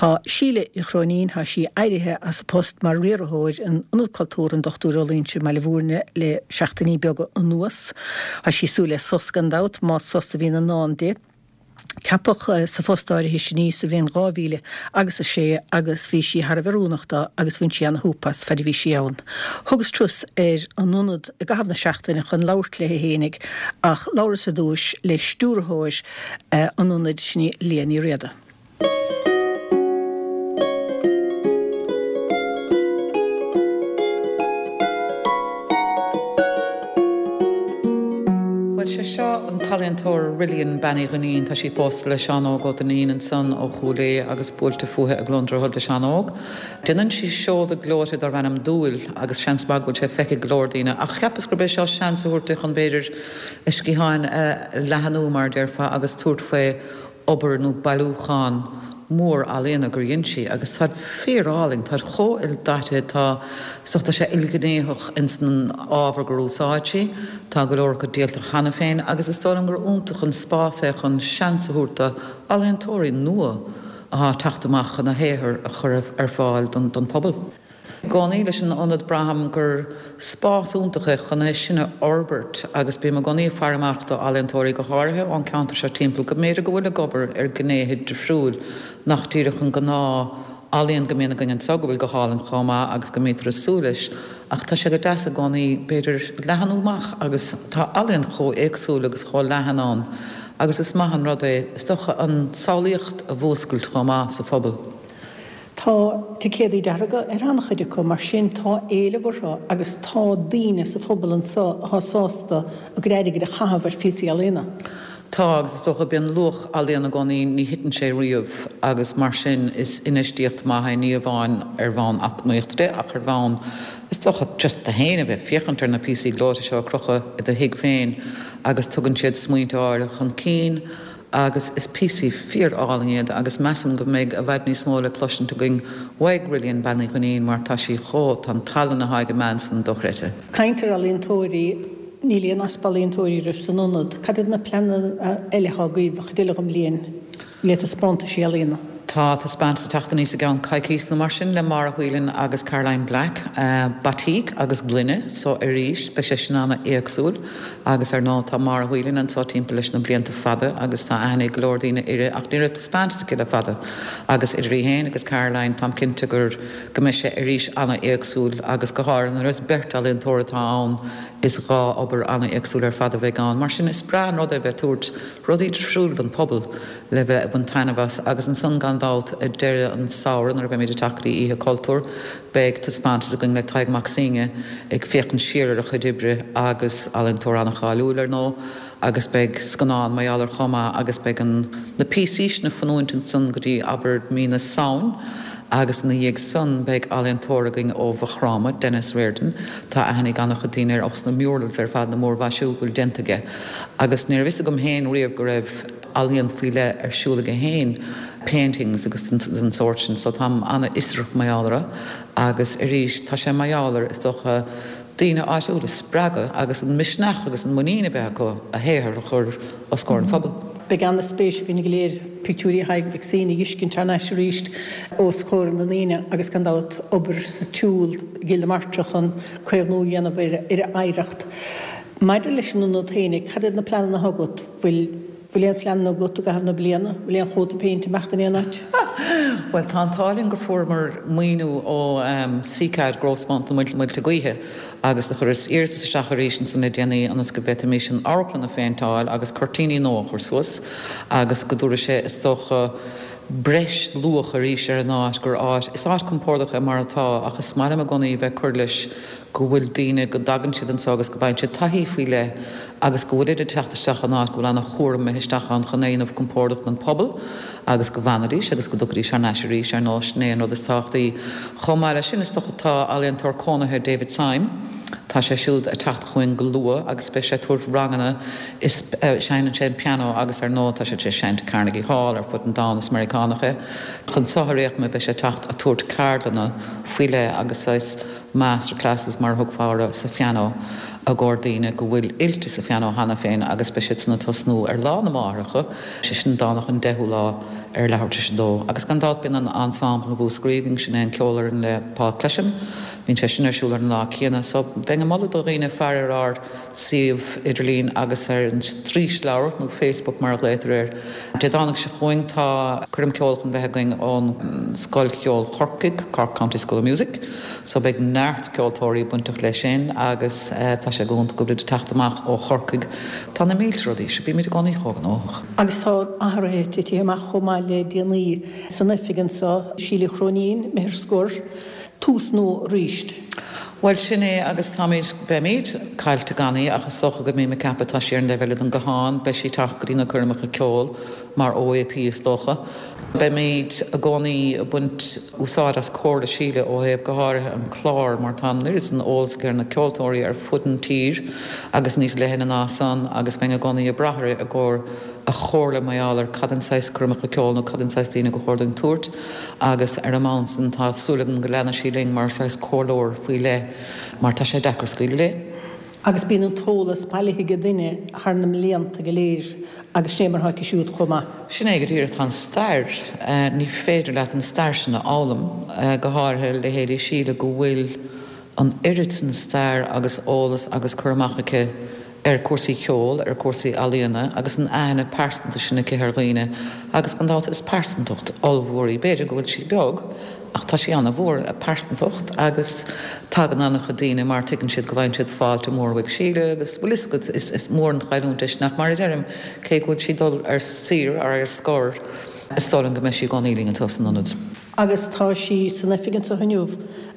Tá Síle Uí Chróinín, tá sí éirithe as a post mar riarthóir in Ionad Cultúrtha an Dr Ó Loingsigh i mBaile Bhúirne le seachtainí beaga anuas. Tá sí ag súil le sos gan dabht, más sos a bhíonn i ndán di. Ceapadh sa phost áirithe sin í sa bhliain 2000 agus 6 agus bhí sí thar a bheith oiriúnach dó agus bhain sí ana-shúp as faid a bhí sí ann. Thugas turas ar an ionad i gcaitheamh na seachtaine chun labhairt léi fhéinig ach labhras ar dtúis le stiúrthóir an ionaid, sin í Liadh Ní Riada. Bhuel, sé seo an t-ealaíontóir Rillian Bean Uí Dhuinnín. Tá sí pósta le Seán Óg Ó Duinnín ansan ó Chúil Aodha agus buailte fúithi i gCluain Droichead le Seán Óg. Déanann sí seoda gleoite darb ainm Dúil agus seans maith go bhfuil sé feicthe ag go leor daoine ach cheapas gurb é seo seans a thabhairt di chun b'fhéidir a sciatháin a leathanú mar a déarfá agus tabhairt faoi obair nó bailiúchán mór ealaíona gur dhein sí agus táid fíor-álainn, táid chomh ildaite, tá, is dócha, tá sé ilghnéitheach ins an ábhar gur úsáid sí, tá go leor acu díolta cheana féin agus is dóigh liom gur iontach an spás é chun seans a thabhairt do ealaíontóirí nua athá ag teacht amach chun a shaothar a chur ar fáil don phobal. I gcónaí leis an ionad braithim gur spás iontach é chun é sin a fhorbairt agus bím i gcónaí ag faire amach do ealaíontóirí go háirithe ón ceantar seo timpeall go mb'fhéidir go bhfuil ag obair ar gnéithe difriúil nach díreach an gnáth ealaíon go mbíonn againn anseo go bhfuil go hálainn chomh maith agus go mbítear ag súil leis ach tá sé go deas i gcónaí b'fhéidir leathanú amach agus tá ealaíon chomh éagsúil agus chomh leathan ann agus is maith an rud é is dócha an samhlaíocht a mhúscailt chomh maith sa phobal. Tá ticéadaí dearga ar an-chuid acu, mar sin tá éileamh orthu agus tá daoine sa phobal anseo atá sásta a gcuid airgid a chaitheamh ar phíosaí ealaíona. Tá, agus is dócha, bíonn luach ealaíon i gcónaí, ní thiteann sé riamh agus mar sin is infheistíocht maith é, ní amháin ar bhonn eacnamaíochta de ach ar bhonn, is dócha, just tú féin a bheith ag féachaint ar na píosaí gleoite seo ag crochadh i do thigh féin agus tugann siad smaointe áirithe chun cinn agus is píosaí fíor-álainn iad agus measaim go mbeidh i bhfad níos mó le cloisint againn uaidh Rillian Bean Uí Dhuinnín mar tá sí chomh, tá an tallann athá ag an mbean san dochreidte. Caint ar ealaíontóirí, níl aon easpa ealaíontóirí agaibh san ionad. Cad iad na pleananna eile atá agaibh an chuid eile den bhliain le taispeántaisí ealaíona? Tá taispeántas ag teacht aníos i gceann coicíos nó mar sin le Máire Whelan agus Caroline Black, Batik agus Gloine, so arís beidh sé sin ana-éagsúil. Agus ar ndóigh tá Máire Whelan anseo timpeall leis na blianta fada agus tá aithne ag go leor daoine uirthi ach ní raibh taispeántas aici le fada agus idir í féin agus Caroline táim cinnte gur go mbeidh sé arís ana-éagsúil agus go háirithe nuair is beirt ealaíontóir atá ann is dhá obair ana-éagsúil ar fad a bheidh ann. Mar sin is breá an rud é bheith ag tabhairt rudaí difriúil don phobal le bheith ag baint taitneamh as agus ansan gan dabht ag deireadh an samhradh nuair a bheimid ag teacht go dtí Oíche Cultúir beidh taispeántas againn le Tadhg Mac Suibhne ag féachaint siar ar a chuid oibre agus ealaíontóir an-cháiliúil ar ndóigh agus beidh scannán mar gheall air chomh maith agus beidh an na píosaí sin ag fanúint ansan go dtí abair mí na Samhain agus ina dhiaidh san beidh ealaíontóir againn ó Mhaigh Chromtha, Denis Riordan, tá aithne ag an-chuid daoine air ós na murals ar fad na múrmhaisiú go bhfuil déanta aige agus ní raibh fhios agam féin riamh go raibh ealaíon faoi leith ar siúl aige féin, paintings agus den sórt sin, so táim an-fhiosrach mar gheall orthu agus arís tá sé mar gheall ar, is dócha, daoine áitiúla a spreagadh agus an misneach agus an muinín a bheith acu a shaothar a chur os comhair an phobail. Beidh an-spéis againn go léir pictiúirí Thaidhg Mhic Suibhne a fheiscint thar n-ais arís os comhair na ndaoine agus gan dabht obair sa tsiúl i gCill na Martra chun caomhnú a dhéanamh ar a oidhreacht. Maidir leis an ionad féinig, cad iad na pleananna atá agat? Bhfuil bhfuil aon phleananna agat i gcaitheamh na bliana? Bhfuil aon chóta péinte ag imeacht in aon áit? Bhuel, tá an t-ádh linn gur fuaireamar maoiniú ó CCAD Growthfund na Muilte Gaoithe agus do chuireas iarratas isteach arís ansan le déanaí ionas go bhféadfaimis an amharclann a phéinteáil agus cuirtíní nua a chur suas agus go dtabharfaidh sé, is dócha, breis luach arís ar an áit gur áit, is áit compordach é mar atá ach is maith liom i gcónaí bheith ag cur leis go bhfuil daoine, go dtagann siad anseo agus go bhfaigheann siad taithí faoi leith agus go bhfuilid ag teacht isteach in áit go bhfuil an-chúram imithe isteach ann chun é a dhéanamh compordach don phobal agus go bhfanfaidís agus go dtiocfaidís thar n-ais arís, ar ndóigh, sin é an rud is tábhachtaí. Chomh maith leis sin, is dócha, tá ealaíontóir cónaithe David Syme, tá sé siúd ag teacht chugainn go luath agus beidh sé ag tabhairt ranganna is seinneann sé an pianó agus ar ndóigh tá sé tar éis seinnt i Carnegie Hall ar fud an domhain, is Meiriceánach é. Chun seo ar aon chuma beidh sé ag teacht ag tabhairt ceardlanna faoi leith agus saghas master classes mar a thugfá orthu sa phianó. I gcomhair daoine go bhfuil oilte sa phianó cheana féin agus beidh siad san ag tosnú ar Lá na Máithreacha, sé sin Domhnach an 10ú lá ar leathuair tar éis a dó. Agus gan dabht bíonn an ensemble Mhúscraí againn, sin é an ceolfhoireann le Paul Clesham, bíonn sé sin ar siúl ar an lá céanna. So bheinn ag moladh do dhaoine faire ar ár suíomh idirlín agus ar an straoisleabhar, nó Facebook mar a ghlaotar air. Dé Domhnaigh seo chugainn tá coirm ceoil chun bheith againn ón Scoil Cheoil Chorcaigh, Cork County School of Music, so beidh neart ceoltóirí bainteach leis sin agus tá sé go hiontach go bhfuilid ag teacht amach ó Chorcaigh. Tá na mílte rudaí, so bímid i gcónaí chomh gnóthach. Agus tá athruithe titithe amach chomh maith le déanaí san oifig anseo, Síle Chróinín, imithe ar scor. Tús nua arís. Bhuel, sin é agus táimid, beimid, caillte gan í ach is dócha go mbím ag ceapadh, tá sí ar an dtaobh eile den guthán, beidh sí ag teacht go dtí na coirmeacha ceoil mar OAP is dócha. Beimid i gcónaí ag baint úsáid as comhairle Síle ó thaobh go háirithe an clár mar tá an oiread san eolas aici ar na ceoltóirí ar fud an tír agus níos leithne ná san agus bheinn i gcónaí ag brath uirthi i gcomhair a chomhairle mar gheall ar cad an saghas coirmeacha ceoil nó cad an saghas daoine go chóir dúinn tabhairt agus ar an mbonn san tá súil agam go leanfaidh sí linn mar saghas comhairleoir faoi leith mar tá sé deacair scaoileadh léi. Agus bíonn an t-eolas bailithe ag duine thar na mblianta go léir agus sin é mar atá aici siúd chomh maith. Sin é go díreach, tá an stair, ní féidir leat an stair sin a fhoghlaim, go háirithe leithéidí Síle go bhfuil an oiread san stair agus eolas agus cur amach aici ar cúrsaí ceoil, ar cúrsaí ealaíona agus an aithne pearsanta sin aici ar dhaoine agus gan dabht is pearsantacht ollmhór í. B'fhéidir go bhfuil sí beag ach tá sí ana-mhór, a pearsantacht agus tagann ana-chuid daoine mar tuigeann siad go bhfaigheann siad fáilte mór uaidh Síle agus bhfuil fhios agat is is mór an chailliúint é sin ach mar a deirim cé go bhfuil sí dul ar saoire ar scor is dóigh liom go mbeidh sí i gcónaí linn anseo san ionad. Agus tá sí san oifig anseo inniu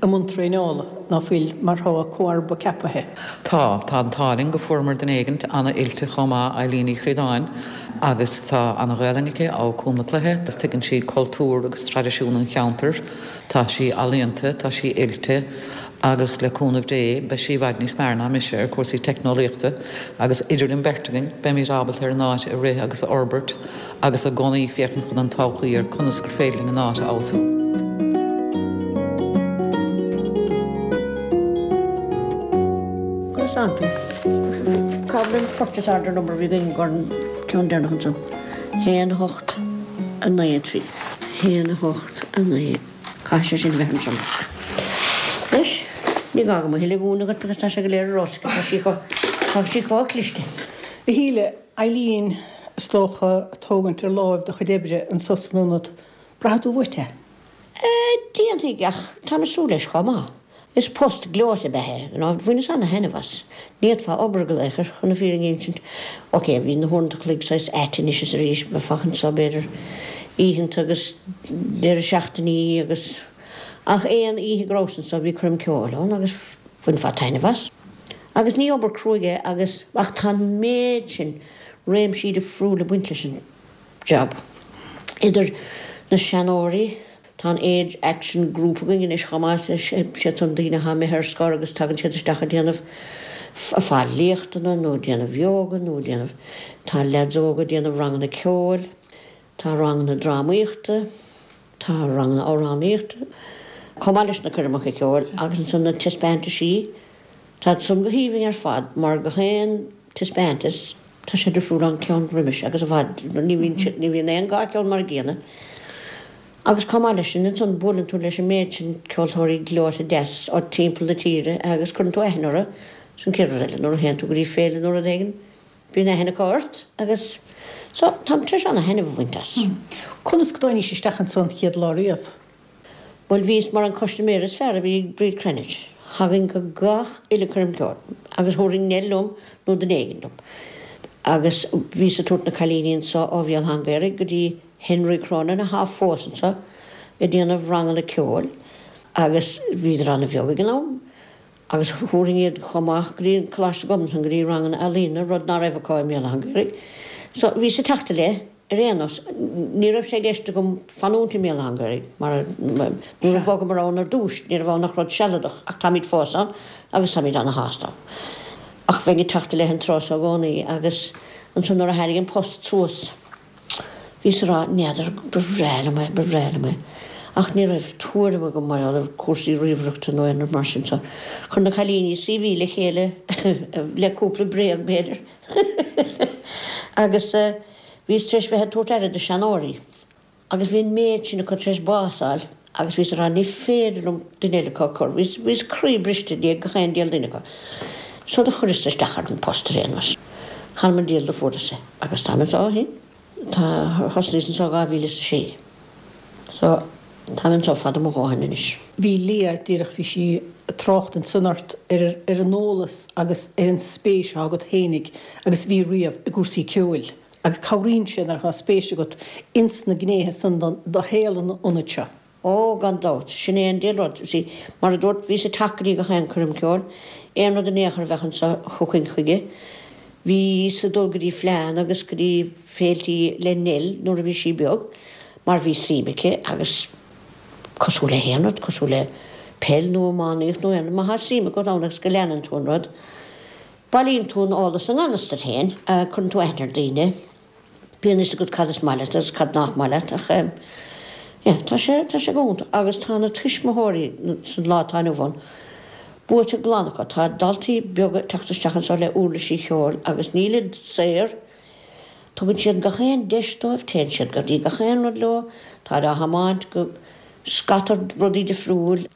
i mbun traenála, ná fuil, mar tá a comharba ceapaithe. Tá. Tá an t-ádh linn go fuaireamar duine éigint ana-oilte chomh maith, Eileen Uí Chríodáin, agus tá ana-Ghaelainn aici, ó Cúm na Cloiche, agus tuigeann sí cultúr agus traidisiún an cheantair. Tá sí ealaíonta, tá sí oilte, agus le cúnamh Dé, beidh sí i bhfad níos fearr ná mise ar chúrsaí teicneolaíochta, agus idir an bheirt againn, beimid ábalta ar an áit a rith agus a fhorbairt. agus i gcónaí féachaint chun an todhchaí ar conas gur féidir linn an áit a fheabhsú. Conas tánn tú? Cá bhfuil an purchase order number a bhí againn gur an ceann deireanach ansan? 1 8 9 3. 1 8 9. Caithfidh sé sin bheith ansan. Anois, ní gá dom a thuilleadh a mhúineadh dhuit because tá sé go léir ar eolas aici. Tá sí chomh, tá sí chomh cliste. A Shíle, Eileen, is dócha, ag tógaint ar láimh do chuid oibre anso san ionad. Braithfidh tú uait é? Déanfaidh, ach táim ag súil leis chomh maith. Is post gleoite ab ea é, you know, bhaineas ana-thaitneamh as. Ní fhéadfá obair go laochar, chun na fírinne a insint. Ok, bhí na huaireanta an chloig saghas ait anois is arís, bheifeá anso b'fhéidir oícheanta agus deireadh seachtainí agus, ach aon oíche go rabhas anso bhí coirm ceoil ann agus bhainfeá taitneamh as. Agus ní obair cruaidh é agus, ach tá an méid sin réimsí difriúla ag baint leis an job. Idir na seanóirí, tá an Age Action Group againn anois chomh maith, siad san daoine atá imithe ar scor agus tagann siad isteach ag déanamh, ag fáil léachtanna nó ag déanamh yoga nó ag déanamh, tá leaids óga ag déanamh ranganna ceoil, tá ranganna drámaíochta, tá ranganna amhránaíochta, chomh maith leis na coirmeacha ceoil agus ansan na taispeántaisí. Táid san go haoibhinn ar fad mar gach aon taispeántas tá sé difriúil ón ceann roimis agus i bhfad, ní bhíonn siad, ní bhíonn aon dhá cheann mar a gcéanna. Agus chomh maith leis sin ansan buaileann tú leis an méid sin ceoltóirí gleoite deas ó timpeall na tíre agus cuireann tú aithne orthu, sin chéad rud eile nuair a théann tú go dtí féile nó rud éigin bíonn aithne acu ort agus so táim tar éis ana-thaitneamh a bhaint as. Conas go dtáinís isteach ansan chéad lá riamh? Bhuel, bhíos mar an custaiméir is fearr a bhí ag Bríd Cranitch. Thagainn go gach uile coirm ceoil agus thabharfainn Nell liom nó duine éigin liom. Agus bhíos ag tabhairt na cailíní anso ó Bhéal Átha an Ghaorthaidh go dtí Henry Cronin athá fós anso ag déanamh ranganna ceoil agus bhíodar ana-bheag ag an am. Agus thabharfainn iad chomh maith go dtí an Coláiste Ghobnatan go dtí ranganna ealaíne, rud ná raibh acu i mBéal Átha an Ghaorthaidh. So bhíos ag teacht i leith ar aon nós. Ní raibh sé i gceist agam fanúint i mBéal Átha an Ghaorthaidh mar nuair a bhogamar ann ar dtús ní raibh ann ach rud sealadach ach táimid fós ann agus táimid ana-shásta ann. Ach bheinn ag teacht i leith an tráth so i gcónaí agus ansan nuair a tháinig an post suas, Bhíos ag rá, n'fheadar, ba bhreá liom é, ba bhreá liom é. Ach ní raibh tuairim agam mar gheall ar cúrsaí ríomhaireachta nó aon rud mar sin so chuir na cailíní CV le chéile le cúpla bréag b'fhéidir agus bhíos tar éis bheith ag tabhairt aire do seanóirí agus bhí an méid sin acu tar éis bás a fháil agus bhíos ag rá ní féidir liom duine eile acu a chur, bhíos, bhíos croí briste i ndiaidh gach aon diabhal duine acu. So do chuireas isteach ar an post ar aon nós. Th'anam 'on diabhal do fuaireas é agus táim anso ó shin. Tá, thosnaíos anso 2006. So, táim anso fada mo dhóthain anois. Bhí Leah, díreach, bhí sí ag trácht ansan ort ar ar an eolas agus ar an spéis atá agat fhéinig agus a bhí riamh i gcúrsaí ceoil agus cabhraíonn sé nuair atá spéis agat ins na gnéithe san do shaol an ionaid seo. Ó, gan dabht, sin é an diabhal rud. You see, mar a dúrt, bhíos ag teacht go dtí gach aon coirm ceoil, aon rud in aon chor a bheadh anso, thiocfainn chuige. Bhíos ag dul go dtí fleánna agus go dtí féiltí le Nell nuair a bhí sí beag, mar bhí suim aici agus cosúil le haon rud, cosúil le peil nó iománaíocht nó aon rud, má thá suim agat ann agus go leanann tú an rud, bailíonn tú an eolas i ngan fhios duit féin, cuireann tú aithne ar daoine. Bíonn fhios agat cad is maith leat agus cad nach maith leat ach yeah tá sé, tá sé go hiontach agus tá na tuismitheoirí san lá atá inniu ann buaite glan acu. Tá daltaí beaga ag teacht isteach anseo le uirlisí cheoil agus nílid saor, tugann siad gach aon deis dóibh, téann siad go dtí gach aon rud leo, táid á thiomáint go scata rudaí difriúil.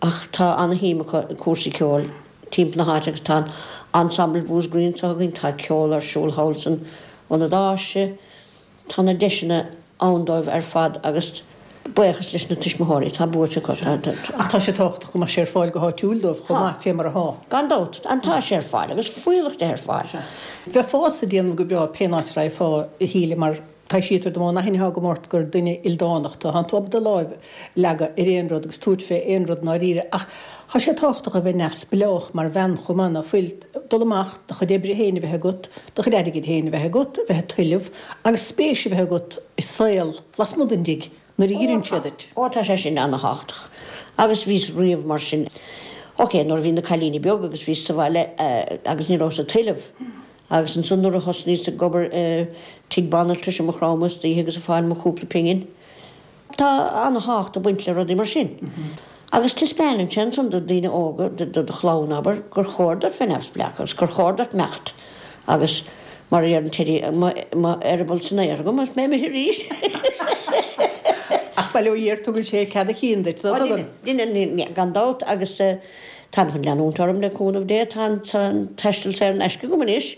Ach tá ana-shuim acu i cúrsaí ceoil timpeall na háite agus tá an Ensemble Mhúscraí anseo againn, tá ceol ar siúl thall san Ionad Áise, tá na deiseanna ann dóibh ar fad agus buíochas leis na tuismitheoirí, tá buaite acu. Tá, tá. Ach tá sé tábhachtach go mbeadh sé ar fáil go háitiúil dóibh chomh maith, fé mar atá. Gan dabht, and tá sé ar fáil agus fuíollach de ar fáil. Bheifeása ag déanamh go breá pén áit a raghfá, a Shíle, mar Taibhsítear dom ón aithne atá agam ort gur duine ildánach tú. Tánn tú ábalta do láimh a leagadh ar aon rud agus tabhairt fé aon rud i ndáiríre. Ach tá sé tábhachtach a bheith neamhspleách mar bhean chomh maith, ná fuil? Dul amach, do chuid oibre féin a bheith agat, do chuid airgid féin a bheith agat, a bheith ag tuilleamh agus spéis a bheith agat i saol lasmuigh den dtigh nuair a dh'iarrann siad duit. Ó tá sé sin ana-thábhachtach. Agus bhíos riamh mar sin. Ok, nuair a bhí na cailíní beag agus bhíos sa bhaile agus ní rabhas ag tuilleamh. Agus ansan nuair a thosnaíos ag obair i tigh banaltrais i Maigh Chromtha istoíche agus ag fáil mo chúpla pingin. Tá ana-thábhacht ag baint le rudaí mar sin. Agus taispeánann sé ansan do daoine óga, do do chlann abair, gur chóir duit bheith neamhspleách agus gur chóir duit imeacht agus mar a deireann Teddy, mo eireaball san aer agam agus mé imithe arís. Ach bail ó Dhia air tugann sé cead a chinn duit, ná tugann? Deineann, gan dabht agus Táim chun leanúint orm le cúnamh Dé. Tá an taisteal saor in aisce agam anois.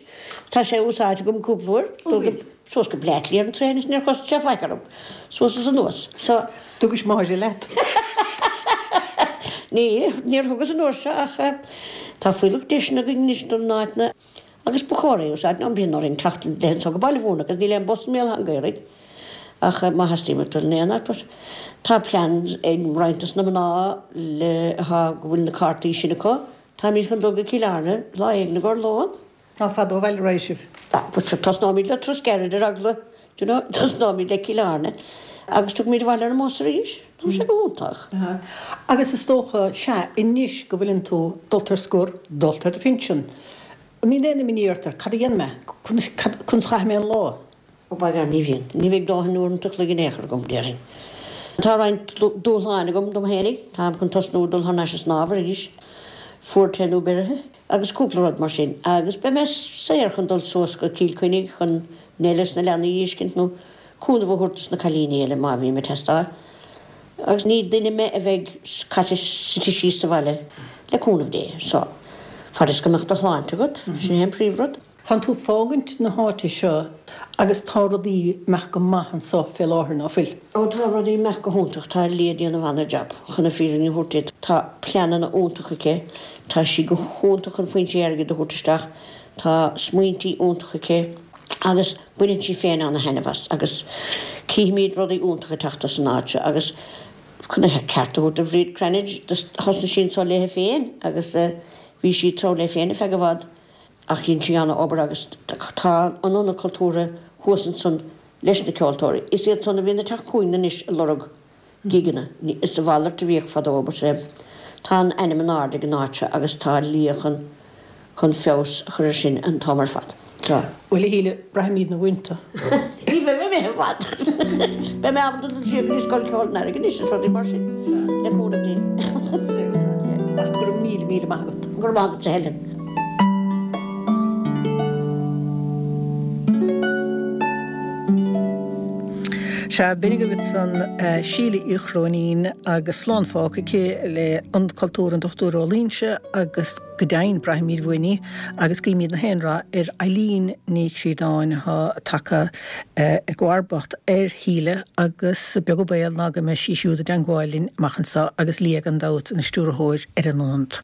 Tá sé úsáidte agam cúpla uair. Dul go, suas go Bleá Cliath ar an traein is níor chosain sé faic orm. Suas is anuas. So. Thugais Máire leat? Ní, níor thugas an uair seo ach tá fuílleach deiseanna againn anois dul in áiteanna agus ba chóir é a úsáid. Nó bíonn orainn teacht le anso go Baile Mhúirne agus níl aon bus i mBéal Átha an Ghaorthaidh. Ach má theastaíonn uait dul in aon áit, but tá pleans ag roinnt dos na mná le atá go bhfuil na cártaí sin acu, táimid chun dul go Cill Airne lá éigin i gcomhair lón. Ná fada ó bhaile a raghaidh sibh. Ah, but sure, tosnóimid le turas gairid ar eagla, do you know, tosnóimid le Cill Airne agus tiocfaimid abhaile ar an mbus arís. Tá sé go hiontach. Agus is dócha, sea, anois go bhfuileann tú dulta ar scor, dulta ar do phinsean, an mbíonn aon imní ort ar cad a dhéanfaidh mé, conas, conas a chaithfidh mé an lá? Ó by gar, ní bhíonn. Ní bheidh dóthain uaireanta a chloig in aon chor agam, déarfainn. Tá roinnt dúshláin agam dom fhéinig. Táim chun tosnú ag dul thar n-ais ag snámh arís, fuar te nó beirithe, agus cúpla rud mar sin. Agus beidh mé saor chun dul suas go Cill Chainnigh chun Nell is na leanaí a fheiscint nó cúnamh a thabhairt dos na cailíní eile má bhím ag teastáil. Agus ní duine mé a bheidh caite suite síos sa bhaile, le cúnamh Dé. So, fad is go mbeadh do shláinte agat, sin é an príomhrud. Tánn tú fágaint na háite seo agus tá rudaí imeacht go maith anso fé láthair, ná fuil? Ó tá rudaí imeacht go hiontach, tá Leah ag déanamh ana-jab, chun na fírinne a thabhairt duit. Tá pleananna iontacha aici, tá sí go hiontach chun foinsí airgid a thabhairt isteach, tá smaointí iontacha aici agus baineann sí féin ana-thaitneamh as agus cífimid rudaí iontacha ag teacht as an áit seo agus chun a ceart a thabhairt do Bhríd Cranitch, thosnaigh sí anso léi féin agus bhí sí ag treabhadh léi féin ar feadh i bhfad. Ach dhein sí ana-obair agus tá an Ionad Cultúrtha thuas ansan leis na ceoltóirí. Is iad san a bhíonn ag teacht chugainn anois ag lorg gigeanna. Is a mhalairt a bhíodh fadó but tá an ainm in airde ag an áit seo agus tá Leah chun chun feabhas a chur ar sin an t-am ar fad. Tá. Bhuel a Shíle, braithimid na uaireanta. Ní bheidh mé imithe. fad. Beidh mé ábalta dul siar go dtí Scoil Ceoil an Earraigh anois is rudaí mar sin, le cúnamh Dé. Ach go raibh míle, míle maith agat. Go raibh maith agatsa Helen. Sea, b'in agaibh ansan Síle Uí Chróinín agus slán fágtha aici le Ionad Cultúrtha an Dochtúir Ó Loingsigh agus go deimhin braithfimid uainn í agus guímid na haon rath ar Eileen Ní Chríodáin atá tagtha i gcomharbacht ar Shíle agus beag an baol ná go mbeidh sí siúd i dteangmháil linn amach anseo agus Lia gan dabht ina stiúrthóir ar an ionad.